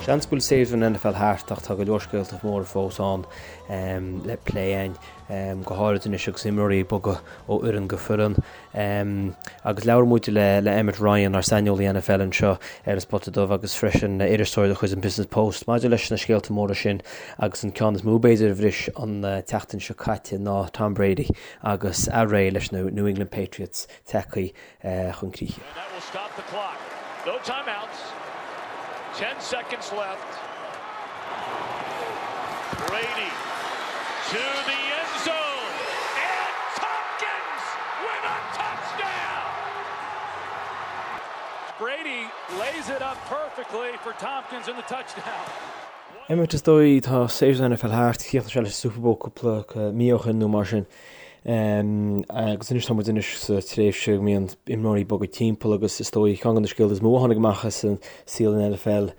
Seans go bhfuil séasúr an NFL thart ach tá go leor scéalta móra fós ann le plé againn, go háirid anois agus imreoirí ag bogadh ó fhoireann go foireann. Agus labhair muid le Emmet Ryan, ár saineolaí NFL anseo ar An Spota Dubh agus freisin iriseoir de chuid an Business Post maidir leis na scéalta móra sin agus an ceann is mó b'fhéidir a bhris an tseachtain seo caite ná Tom Brady agus a ré leis na New England Patriots tagtha chun críche. And that will stop the clock. No timeouts. 10 seconds left. Brady to the end zone. And Tompkins with a touchdown. Brady lays it up perfectly for Tompkins in the touchdown. Emmet, is dóigh, tá séasúr an NFL thart, chríochnaigh sé leis an Super Bowl cúpla mí ó shin nó mar sin. Agus anois tá muid anois sa tréimhse go mbíonn imreoirí ag bogadh timpeall agus is dóigh ceann de na scéalta is mó a tháinig amach as an saol an NFL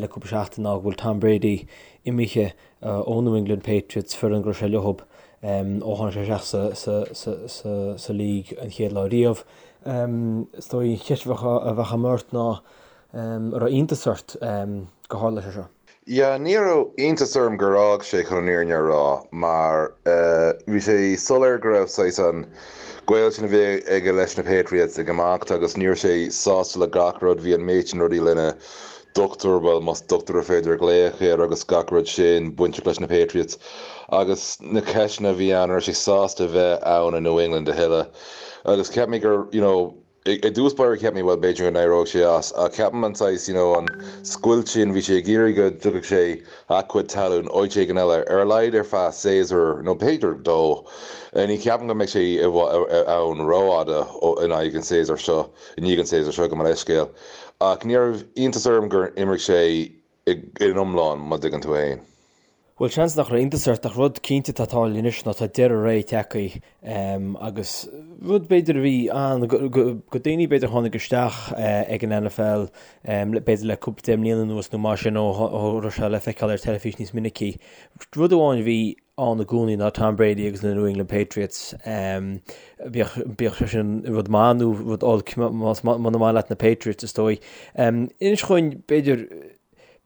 le cúpla seachtain ná go bhfuil Tom Brady imithe ó New England Patriots, foireann go raibh sé leo ó tháinig sé isteach sa league an chéad lá riamh. Is dóigh an cheist a bheadh agam ort ná an raibh iontas ort gur tharla sé seo? Yeah, ní raibh iontas orm gur fhág sé chun an fhírinne a rá mar bhí sé soiléir go raibh saghas an gaol sin a bhí aige leis na Patriots ag imeacht agus ní raibh sé sásta le gach rud, bhí an méid sin rudaí lena dochtúir, bhuel más dochtúir ar féidir a ghlaoch air agus gach rud sin bainteach leis na Patriots agus na ceisteanna a bhí ann, an raibh sé sásta bheith ann i New England a thuilleadh agus cheap mé gur, you know, I dtús báire cheap mé, bhuel, b'fhéidir go n-éireoidh sé as, ach ceapaim an saghas, you know, an scoilt sin, bhí sé ag iarraidh go dtiocfadh sé a chuid talún áit éigin eile, ar a laghad ar feadh séasúr nó b'fhéidir dó. Ní cheapaim go mbeidh sé ann rófhada in aghaidh an séasúr seo, i ndiaidh an séasúr seo, gabh mo leithscéal. Ach ní raibh iontas orm gur imigh sé in iomlán, má dtuigeann tú fhéin. Bhuel, seans nach raibh iontas ort, ach rud cinnte atá ag tarlú anois ná tá deireadh ré tagtha agus rud b'fhéidir a bhí ann go daoine b'fhéidir a tháinig isteach ag an NFL b'fhéidir le cúpla deich mbliana anuas nó mar sin ó raibh sé le feiceáil ar teilifís níos minicí. Rud amháin a bhí ann i gcónaí ná Tom Brady agus na New England Patriots. Bíodh sé sin rud maith nó rud olc más muna maith leat na Patriots is dóigh. Inis dhúinn b'fhéidir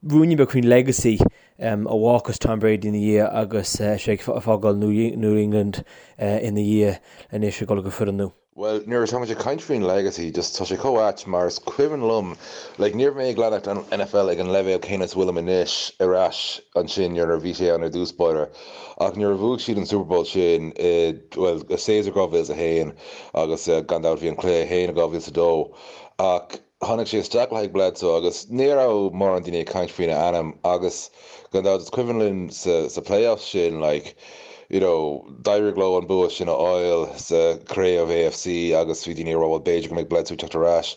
ruainnín beag faoin legacy a bhfágfas Tom Brady ina dhiaidh agus sé ag fágáil New England ina dhiaidh anois ag dul go foireann nua. Bhuel, nuair atá muid ag caint faoin legacy, just tá sé chomh ait mar is cuimhin liom, like ní raibh mé ag leanacht an NFL ag an leibhéal céanna is a bhfuilim anois ar ais ansin nuair a bhí sé ann ar dtús báire ach nuair a bhuaigh siad an Super Bowl sin i, bhuel, i séasúr 2001 agus gan dabht bhí an cluiche féin i 2002 ach Tháinig sé isteach le haghaidh Bledsoe agus ní raibh mórán daoine ag caint faoina ainm agus gan dabht is cuimhin linn sa sa playoffs sin like you know d'éirigh leo an bua sin a fháil sa chraobh AFC agus bhí daoine ag rá bhuel b'fhéidir go mbeidh Bledsoe ag teacht ar ais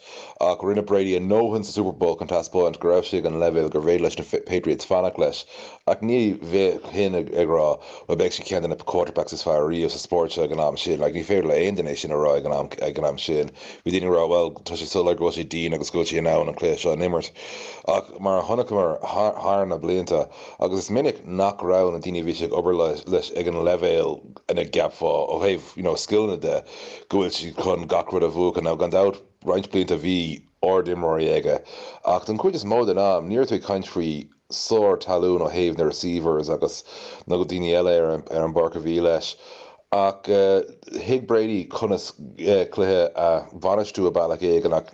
ach rinne Brady a ndóthain sa Super Bowl chun taispeáint go raibh sé ag an leibhéal gurbh fhéidir leis na Patriots fanacht leis Ach ní bheinn ag rá, bhuel, beidh sé ceann de na quarterbacks is fearr riamh sa spórt seo ag an am sin. Like, ní féidir le aon duine é sin a rá ag an am, ag an am sin. Bhí daoine ag rá, bhuel, tá sé soiléir go bhfuil sé dian agus go bhfuil sé in ann an cluiche seo a imirt. Ach mar a chonaiceamar thar na blianta, agus is minic nach raibh na daoine a bhí sé ag obair leis ag an leibhéal ina gceapfá ó thaobh, you know, scileanna de, go bhfuil siad chun gach rud a bhuachan. Now, gan dabht, roinnt blianta bhí ard-imreoirí aige, ach don chuid is mó den am, ní raibh tú ag caint faoi sár-talún ó thaobh na receivers agus na daoine eile ar an bpáirc a bhí leis. Ach thuig Brady conas cluiche a bhainistiú i bealach éigin ach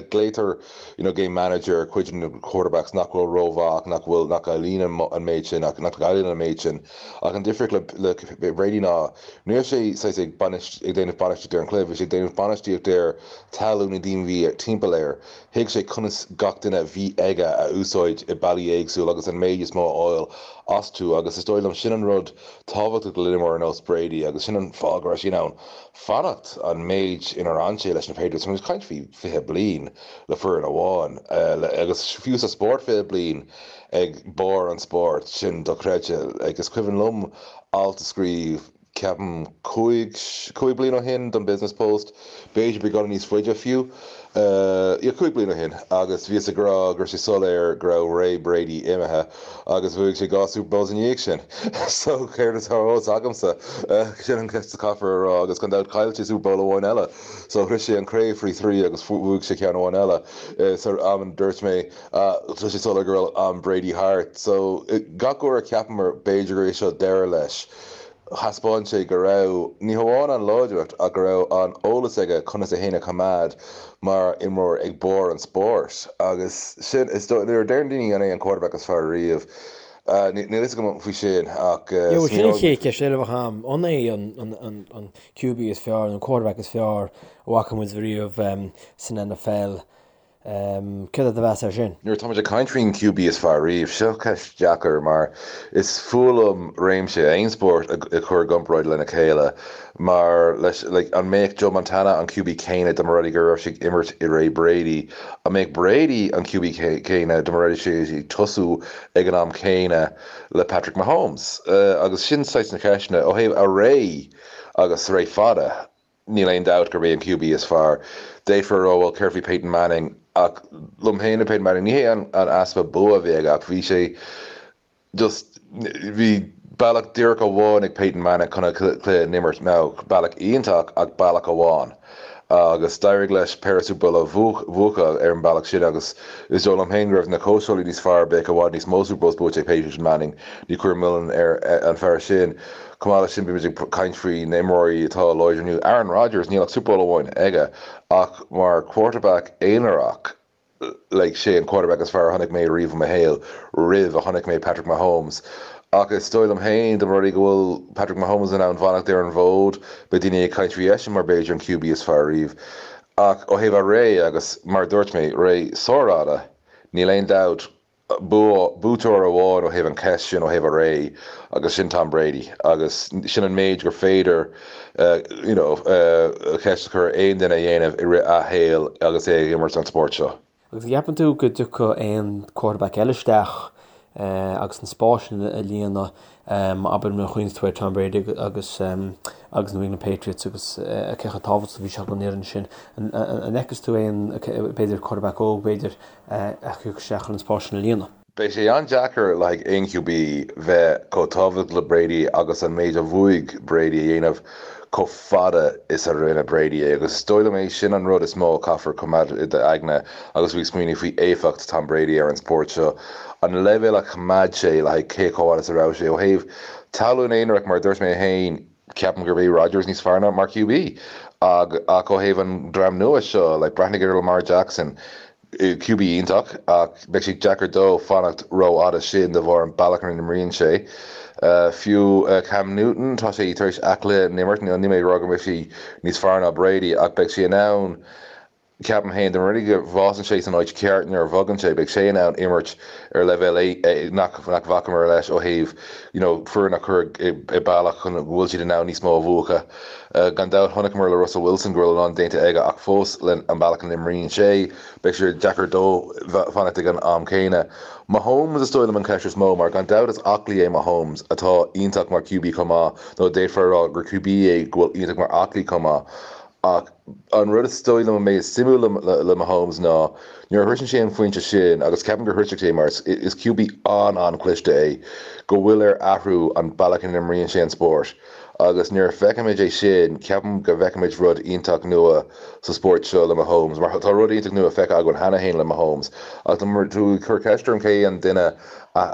glaotar you know game manager ar chuid de na quarterbacks nach bhfuil rómhaith ach nach bhfuil nach gcailleann an méid sin ach nach gcailleann an méid sin. Ach an difríocht le le Brady ná ní raibh sé saghas ag ag déanamh bainistíocht ar an chluiche, bhí sé ag déanamh bainistíocht ar talún na daoine a bhí timpeall air. Thuig sé conas gach duine a bhí aige a úsáid i bealaí éagsúla agus an méid is mó a fháil astu agus is dóigh liom sin an rud tábhachtach le imreoir ar nós Brady agus sin an fáth go raibh sé in ann fanacht an méid inar fhan sé leis na Patriots. Tá muid ag caint faoi 20 bliain le foireann amháin agus fiú sa spórt 20 bliain ag barr an spóirt, sin dochreidte. Like is cuimhin liom alt a scríobh. ceapaim 5, 5 bliain ó shin don Business Post, b'fhéidir beagán níos faide fiú, yeah 5 bliain ó shin agus bhíos ag rá go raibh sé soiléir go raibh ré Brady imithe agus bhuaigh sé 2 Super Bowls ina dhiaidh sin. So céard atá ar eolas agamsa? Sin an cheist a chaithfear a rá agus gan dabht chaill sé Super Bowl amháin eile. So shroich sé an craobh faoi thrí agus bhuaigh sé ceann amháin eile. San am a dúirt mé tá sé soiléir go raibh am Brady thart. So gach uair a cheapamar b'fhéidir gur é seo deireadh leis, thaispeáin sé go raibh, ní hamháin an láidreacht ach go raibh an eolas aige conas é féin a choimeád mar imreoir ag barr an spóirt. Agus sin, is dóigh, nuair a deireann daoine an é an quarterback is fearr riamh, níl a fhios agam faoi sin ach Sin an chéad cheist eile a bheadh agam, an é an QB is fearr, an quarterback is fearr a bhfaca muid riamh san NFL? Céard é do mheas air sin? Nuair atá muid ag caint faoin QB is fearr riamh, seo ceist deacair mar is fuath liom réimse aon spórt a chur i gcomparáid lena chéile mar leis like an mbeadh Joe Montana an QB céanna dá mba rud é go raibh sé ag imirt i ré Brady? An mbeadh Brady an QB céanna dá mba rud é sé ag tosú ag an am céanna le Patrick Mahomes? Agus sin saghas na ceisteanna ó thaobh a ré agus ré fada. Níl aon dabht gurb é an QB is fearr. D'fhéadfá a rá, bhuel, céard faoi Peyton Manning? Ach liom féin le Peyton Manning, ní hé an easpa bua a bhí aige ach bhí sé just, bhí bealach díreach amháin ag Peyton Manning chun an cluiche a imirt. Now, bealach iontach ach bealach amháin. Agus d'éirigh leis péire Super Bowl a bhuachan ar an bealach sin agus is dóigh liom féin go raibh na cóitseálaí níos fearr, bheadh i bhfad níos mó Super Bowls buaite ag Peyton Manning. Ní cuirim milleán ar an fear sin. Chomh maith leis sin, bímid ag caint faoi na imreoirí atá láidir inniu. Aaron Rodgers, níl ach Super Bowl amháin aige, ach mar quarterback aonarach, like, sé an quarterback is fearr a chonaic mé riamh i mo shaol, roimh a chonaic mé Patrick Mahomes. Ach is dóigh liom féin, dá mba rud é go bhfuil Patrick Mahomes in ann fanacht ar an bhfód, beidh daoine ag caint faoi eisean mar b'fhéidir an QB is fearr riamh. Ach ó thaobh a ré, agus mar a dúirt mé, ré sárfhada, níl aon dabht, buaiteoir amháin ó thaobh an cheist sin ó thaobh a ré agus sin Tom Brady agus sin an méid gur féidir you know ceist a chur ar aon duine a dhéanamh i rith a shaoil agus é ag imirt an spórt seo. Agus an gceapann tú go dtiocfadh aon quarterback eile isteach agus an spás sin a líonadh, abair nuair a chuimhníonn tú ar Tom Brady agus agus New England Patriots agus cé chomh tábhachtach a bhí sé don fhoireann sin. An bhfeiceann tú aon b'fhéidir quarterback óg b'fhéidir a thiocfadh isteach chun an spás sin a líonadh. Beidh sé an-deacair le haghaidh aon QB bheith chomh tábhachtach le Brady agus an méid a bhuaigh Brady a dhéanamh chomh fada is a rinne Brady é agus is dóigh liom é sin an rud is mó a chaithfear coimeád i d'aigne agus tú ag smaoineamh faoi éifeacht Tom Brady ar an spórt seo, an leibhéal a choimeád sé le haghaidh cé chomh fada is a raibh sé. Ó thaobh tallann aonarach, mar a dúirt mé féin, Ceapaim gurb é Rodgers níos fearr ná mar QB ach ó thaobh an dream nua seo, like breathnaigh ar Lamar Jackson, QB iontach ach beidh sé deacair dó fanacht rófhada sin de bharr an bealach ina n-imríonn sé. Fiú Cam Newton, tá sé tar éis a chluiche a imirt, níl mé ag rá go mbeidh sé níos fearr ná Brady ach beidh sé in ann Ceapaim féin, dá mba rud é go bhfásann sé san áit cheart nuair a bhogann sé, beidh sé in ann imirt ar leibhéal nach bhfacamar leis ó thaobh you know foireann a chur i bealach chun go bhfuil siad in ann níos mó a bhuachan. Gan dabht chonaiceamar le Russell Wilson go raibh a lán déanta aige ach fós le an bealach a n-imríonn sé, beidh sé deacair dó fanacht ag an am céanna. Mahomes is dóigh liom an cheist is mó mar gan dabht is aclaí é Mahomes atá iontach mar QB chomh maith nó d'fhéadfá a rá gur QB é go bhfuil iontach mar aclaí chomh maith ach An rud is dóigh liom a mbeidh suimiúil le Mahomes ná nuair a shroiseann sé an phointe sin, agus ceapaim gur shroisfidh sé mar is QB an-an-chliste é, go bhfuil air athrú an bealach ina n-imríonn sé an spórt. Agus nuair a feicfimid é sin, ceapaim go bhfeicfimid rud iontach nua sa spórt seo le Mahomes, mar tá rud iontach nua feicthe againn cheana féin le Mahomes. Ach dá mba tú ag cur ceist orm cé an duine a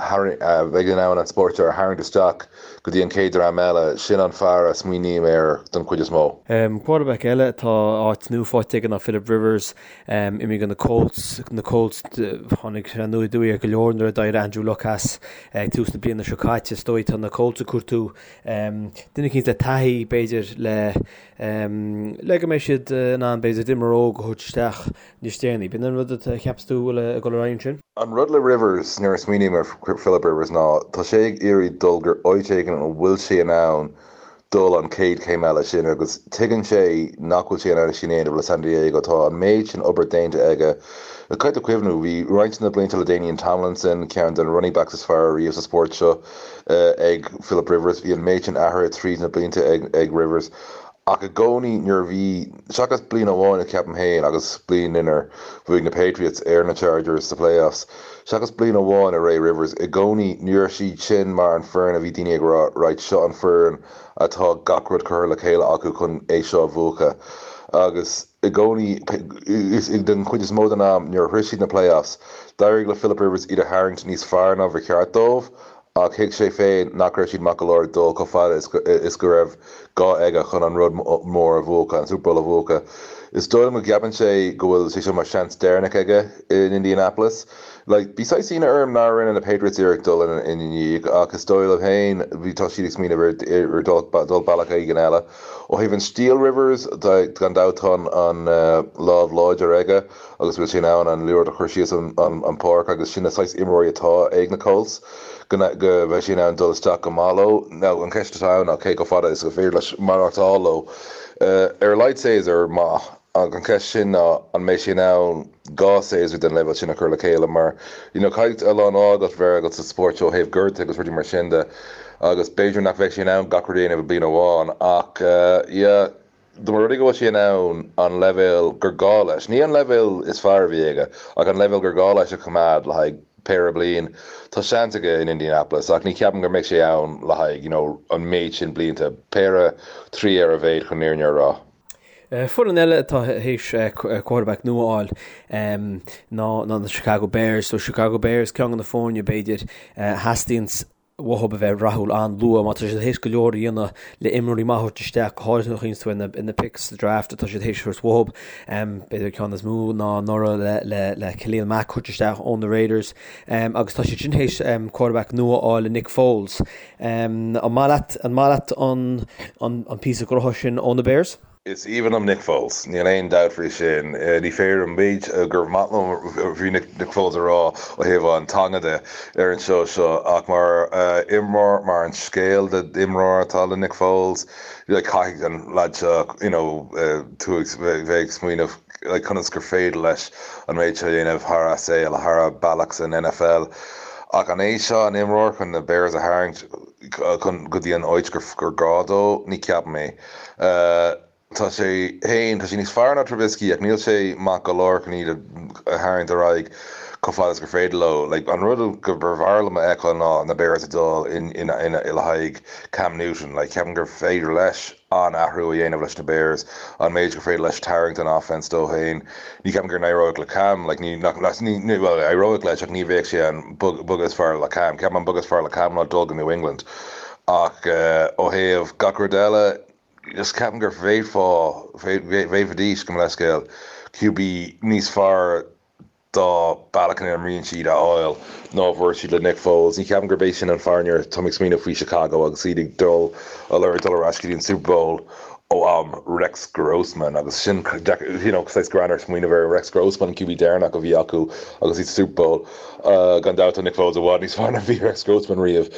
bheidh in ann an spórt seo a tharraingt isteach, go dtí an chéad dream eile, sin an fear a smaoiním air don chuid is mó. Quarterback eile atá áit nua faighte aige ná Philip Rivers, imithe go na Colts. Na Colts, tháinig sé aniar aduaidh ar go leor nuair a d'éirigh Andrew Luck as ag tús na bliana seo caite. Is dóigh tá na Colts ag cuartú duine eicínt le taithí, b'fhéidir, le le go mbeidh siad in ann, b'fhéidir, imreoir óg a thabhairt isteach níos déanaí. B'in an rud a cheapas tú bhfuil ag dul ar aghaidh ansin? An rud le Rivers, nuair a smaoiním ar Philip Rivers ná tá sé ag iarraidh dul go áit éigin a bhfuil sé in ann dul an chéad chéim eile sin agus tuigeann sé nach bhfuil sé in ann sin a dhéanamh le San Diego. Tá an méid sin obair déanta aige. Caithfidh tú cuimhniú, bhí roinnt de na blianta LaDainian Tomlinson, ceann de na running backs is fearr riamh sa spórt seo, ag Philip Rivers. Bhí an méid sin athraithe tríd na blianta ag Rivers ach i gcónaí nuair a bhí, seachas bliain amháin ceapaim féin agus bliain inar bhuaigh na Patriots ar na Chargers sa playoffs, seachas bliain amháin i ré Rivers, i gcónaí ní raibh siad sin mar an foireann a bhí daoine ag rá right seo an foireann atá gach rud curtha le chéile acu chun é seo a bhuachan agus i gcónaí den chuid is mó den am nuair a shroich siad na playoffs d'éirigh le Philip Rivers iad a tharraingt níos fearr ná ba cheart dóibh Ach thuig sé féin nach raibh siad maith go leor dul chomh fada is go raibh gá aige chun an rud mór a bhuachan, an Super Bowl a bhuachan. Is dóigh liom go gceapann sé go bhfuil sé seo mar seans deireanach aige in Indianapolis. Like, bhí saghas ionadh orm nár rinne na Patriots iarracht dul ina ndiaidh ach is dóigh liom féin bhí tá siad ag smaoineamh ar dul bealach éigin eile. Ó thaobh an stíl Rivers, gan dabht tá an lámh láidir aige. agus bhfuil sé in ann an liathróid a chur síos an pháirc agus sin na saghas imreoirí atá ag na Colts, go mbeidh sé in ann dul isteach go maith leo. Now an cheist atá ann ná cé chomh fada is gur féidir leis maireachtáil leo. Ar a laghad séasúr maith ach an cheist sin ná an mbeidh sé in ann 2 séasúr den leibhéal sin a chur le chéile mar you know caithfidh a lán ádh agat bheith agat sa spórt seo ó thaobh gortuithe agus rudaí mar sin de agus b'fhéidir nach mbeidh sé in ann gach rud a dhéanamh i bliain amháin ach yeah Dá mba rud é go bhfuil sé in ann an leibhéal gur gá leis, ní an leibhéal is fearr a bhí aige, ach an leibhéal gur gá leis a choimeád le haghaidh péire bliain, tá seans aige in Indianapolis ach ní cheapaim go mbeidh sé ann le haghaidh you know an méid sin blianta, péire, trí ar a mhéad chun an fhírinne a rá. Foireann eile atá théis quarterback nua a fháil ná na Chicago Bears. So Chicago Bears ceann de na foirne b'fhéidir a theastaíonn uathu a bheith rathúil an-luath mar tá siad théis go leor a dhéanamh le imreoirí maithe a thabhairt isteach, go háirithe nuair a chuimhníonn tú ar na picks sa draft atá siad théis a thabhairt uathu. B'fhéidir ceann is mó ná anuraidh le le Khalil Mack a thabhairt isteach ó na Raiders agus tá siad sin théis quarterback nua a fháil le Nick Foles. An maith leat an maith leat an an píosa gnótha sin ó na Bears? Is aoibhinn liom Nick Foles, níl aon dabht faoi sin. Ní féidir an méid gur maith liom faoi Nick Foles a rá ó thaobh an teanga de ar an seó seo ach mar imreoir, mar an scéal d'imreoir atá le Nick Foles, like caithfidh an leaid seo you know tú ag bheith ag smaoineamh like conas gur féidir leis an méid seo a dhéanamh thar a saol, thar a bealach san NFL. Ach an é seo an imreoir chun na Bears a tharraingt chun go dtí an áit gur gá dó? Ní cheapaim é. Tá sé féin, tá sé níos fearr ná Trubisky ach níl sé maith go leor chun iad a tharraingt ar aghaidh chomh fada is gur féidir leo. Like, an rud go mb'fhearr liom a fheiceáil ná na Bears ag dul in, in, in, le haghaidh Cam Newton. Like, ceapaim gur féidir leis an-athrú a dhéanamh leis na Bears, an méid gur féidir leis tarraingt an offense dó féin. Ní ceapaim gur n-éireoidh le Cam, like, ní, nach, ní, ní, well, éireoidh leis ach ní bheadh sé an bogadh is fearr le Cam. Ceapaim an bogadh is fearr le Cam ná dul go New England. Ach ó thaobh gach rud eile, just ceapaim gur bhféadfá, bhféadfaidís, gabh mo leithscéal, QB níos fearr dá bealach ina n-imríonn siad a fháil ná a bhfuair siad le Nick Foles. Ní cheapaim gurb é sin an fear nuair atá mé ag smaoineamh faoi Chicago agus iad ag dul ag lorg dul ar ais go dtí an Super Bowl ó am Rex Grossman agus sin you know saghas greannmhar smaoineamh ar Rex Grossman an QB deireanach a bhí acu agus iad sa Super Bowl. Gan dabht tá Nick Foles i bhfad níos fearr ná bhí Rex Grossman riamh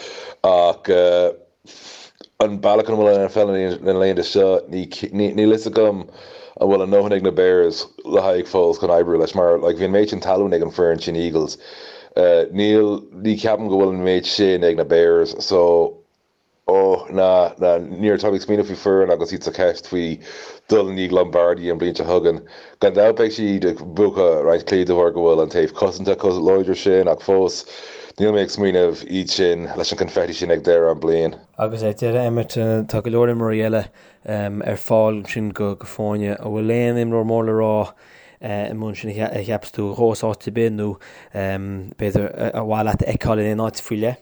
ach an bealach ina bhfuil an NFL na laethanta seo níl fhios agam an bhfuil a ndóthain ag na Bears le haghaidh Foles chun oibriú leis mar like bhí an méid sin talún ag an foireann sin Eagles níl ní ceapaim go bhfuil an méid sin ag na Bears so Ó, ná, ná, nuair atá mé ag smaoineamh faoi foireann agus iad sa cheist faoi dul i ndiaidh Lombardi an bhliain seo chugainn, gan dabht beidh siad ag buachan roinnt cluichí de bharr go bhfuil an taobh cosanta chomh láidir sin ach fós, níl mé ag smaoineamh iad sin leis an confetti sin ag deireadh an bliain. Agus ar deireadh, Emmet, tá go leor imreoirí eile ar fáil ansin do foirne. An bhfuil aon imreoir mór le rá amuigh ansin a cheapas tú a ghabhfas áit ar bith nó b'fhéidir ar mhaith leat a fheiceáil in aon áit faoi leith?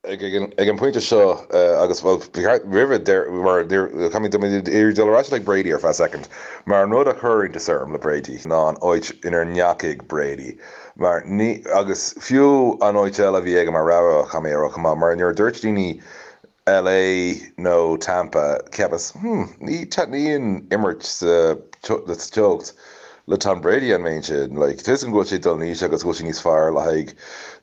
Ag an bpointe seo, agus, bhuel, ba cheart roimhe, mar caithfidh mé dul ar ais le Brady ar feadh soicind, mar an rud a chuir iontas orm le Brady ná an áit inar ndeachaigh Brady, mar ní, agus fiú an áit eile a bhí aige mar rogha, caithfidh mé a rá chomh maith, mar nuair a dúirt daoine LA nó Tampa, cheapas, hmm, ní taitníonn imirt sa teocht le Tom Brady an méid sin. Like, tá 'fhios agam go bhfuil sé ag dul in aois agus go bhfuil sé níos fearr le haghaidh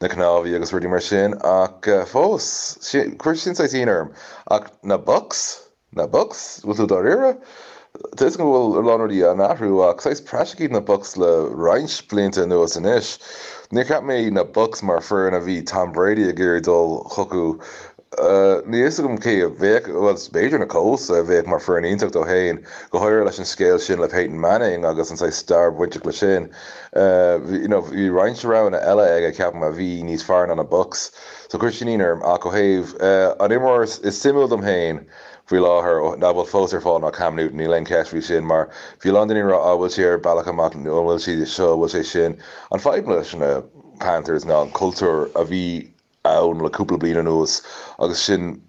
na cnámhaí agus rudaí mar sin, ach fós, chuir sin saghas ionadh orm. Ach na Bucs? Na Bucs? Bhfuil tú dáiríre? Tá 'fhios agam go bhfuil a lán rudaí á n-athrú ach saghas praiseach iad na Bucs le roinnt blianta anuas anois. Níor cheap mé na Bucs mar foireann a bhí Tom Brady ag iarraidh dul chucu. Níl 'fhios agam cé a bheadh, bhuel b'fhéidir na Colts a bheadh mar foireann iontach dó féin, go háirithe leis an scéal sin le Peyton Manning agus an saghas stair bainteach le sin. You know bhí roinnt roghanna eile aige ceapaim a bhí níos fearr ná na Bucs. So chuir sin ionadh orm ach ó thaobh an imreoir is suimiúil dom féin faoi láthair nach bhfuil fós ar fáil ná Cam Newton, níl aon cheist faoi sin mar bhí a lán daoine ag rá ah bhfuil sé ar bealach amach nó an bhfuil sé seo, an bhfuil sé sin. An fadhb leis na Panthers ná an cultúr a bhí ann le cúpla bliain anuas agus sin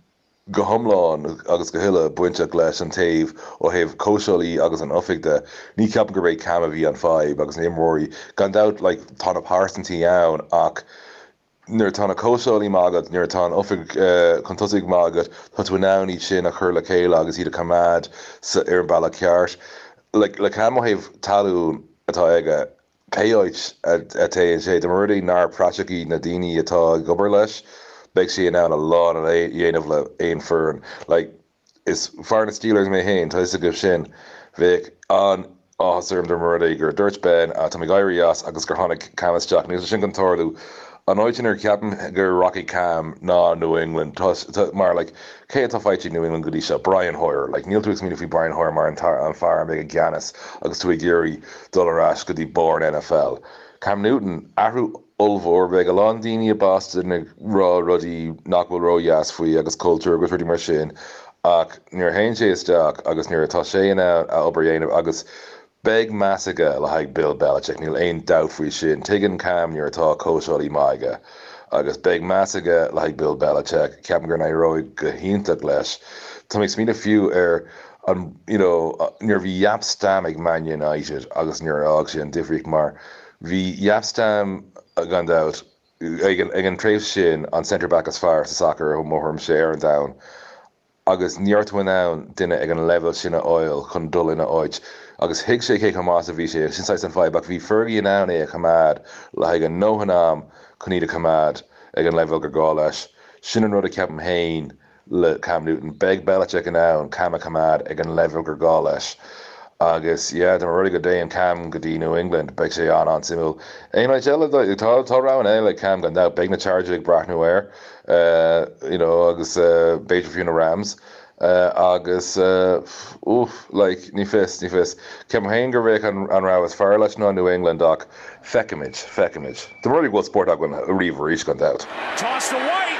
go hiomlán agus go huile bainteach leis an taobh ó thaobh cóitseálaí agus an oifig de. Ní ceapaim gurb é Cam a bhí an fadhb agus na imreoirí. Gan dabht like tá na pearsantaí ann ach nuair atá na cóitseálaí maith agat, nuair atá an oifig chun tosaigh maith agat, tá tú in ann iad sin a chur le chéile agus iad a choimeád ar an bealach ceart. Like le Cam ó thaobh talún atá aige, pé áit a dtéann sé, dá mba rud é nár praiseach iad na daoine atá ag obair leis, beidh sé in ann a lán a dhéanamh le aon foireann. Like is fear na Steelers mé féin, tá 'fhios agaibh sin. Bheadh an-áthas orm dá mba rud é gur dúirt Ben, tá mé ag éirí as agus gur tháinig Cam isteach. Níl sé sin chun tarlú. An áit inar ceapaim gur rachaidh Cam ná New England. Tá, mar like, cé atá faighte ag New England go dtí seo? Brian Hoyer. Like, níl tú ag smaoineamh faoi Brian Hoyer mar an fear a mbeidh i gceannas agus tú ag iarraidh dul ar ais go dtí barr an NFL. Cam Newton, athrú ollmhór. Beidh a lán daoine i Boston ag rá rudaí nach bhfuil ródheas faoi agus cultúr agus rudaí mar sin ach nuair a théann sé isteach agus nuair atá sé in ann a obair a dhéanamh agus beidh meas aige le haghaidh Bill Belichick, níl aon dabht faoi sin. Tuigeann Cam nuair atá cóitseálaí maith aige agus beidh meas aige le haghaidh Bill Belichick. Ceapaim go n-éireoidh go hiontach leis. Tá mé ag smaoineamh fiú ar an you know nuair a bhí Jaap Stam ag Man United agus nuair a fhág sé an difríocht mar Bhí Jaap Stam, gan dabht, ag an tréimhse sin, an centre back is fearr sa sacar, i mo thuairimse, ar an domhan agus ní raibh tú in ann duine ag an leibhéal sin a fháil chun dul ina áit agus thuig sé cé chomh maith is a bhí sé agus sin saghas an fadhb ach bhí Fergie in ann é a choimeád le haghaidh a ndóthain am chun iad a choimeád ag an leibhéal gur gá leis. Sin an rud a ceapaim féin. le Cam Newton. Beidh Belichick in ann Cam a choimeád ag an leibhéal gur gá leis. Agus yeah, dá mba rud é go dtéann Cam go dtí New England, beidh sé an-an-suimiúil. Aon áit eile, tá tá roghanna eile ag Cam gan dabht. Beidh na Chargers ag breathnú air, you know, agus b'fhéidir fiú na Rams. Agus oof, like, ní fios, ní fios. Ceapaim féin gur bheadh an an rogha is fearr leis ná New England ach Feicfimid, feicfimid. Dá mba rud é go bhfuil spórt againn ariamh arís, gan dabht. Toss to White.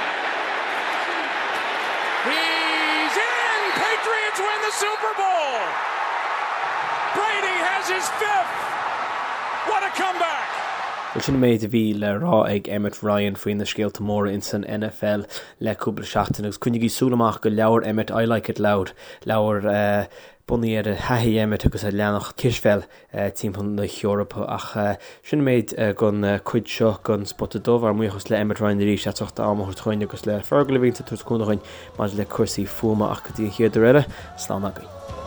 He's in! Patriots win the Super Bowl! Brady has his fifth! What a comeback! Bhuel, sin an méid a bhí le rá ag Emmet Ryan faoi na scéalta móra ins an NFL le cúpla seachtain agus coinnigí súil amach go leabhar Emmet I Like It Loud, leabhar bunaithe ar thaithí Emmet agus a leanach cispheil timpeall na hEorpa. Ach sin an méid den chuid seo den Spota Dubh. Ár mbuíochas le Emmet Ryan arís as ucht a am a thabhairt chugainn agus le Fergal a bhíonns ag tabhairt cúnamh dhuinn maidir le cúrsaí fuaime. Ach go dtí an chéad uair eile, slán agaibh.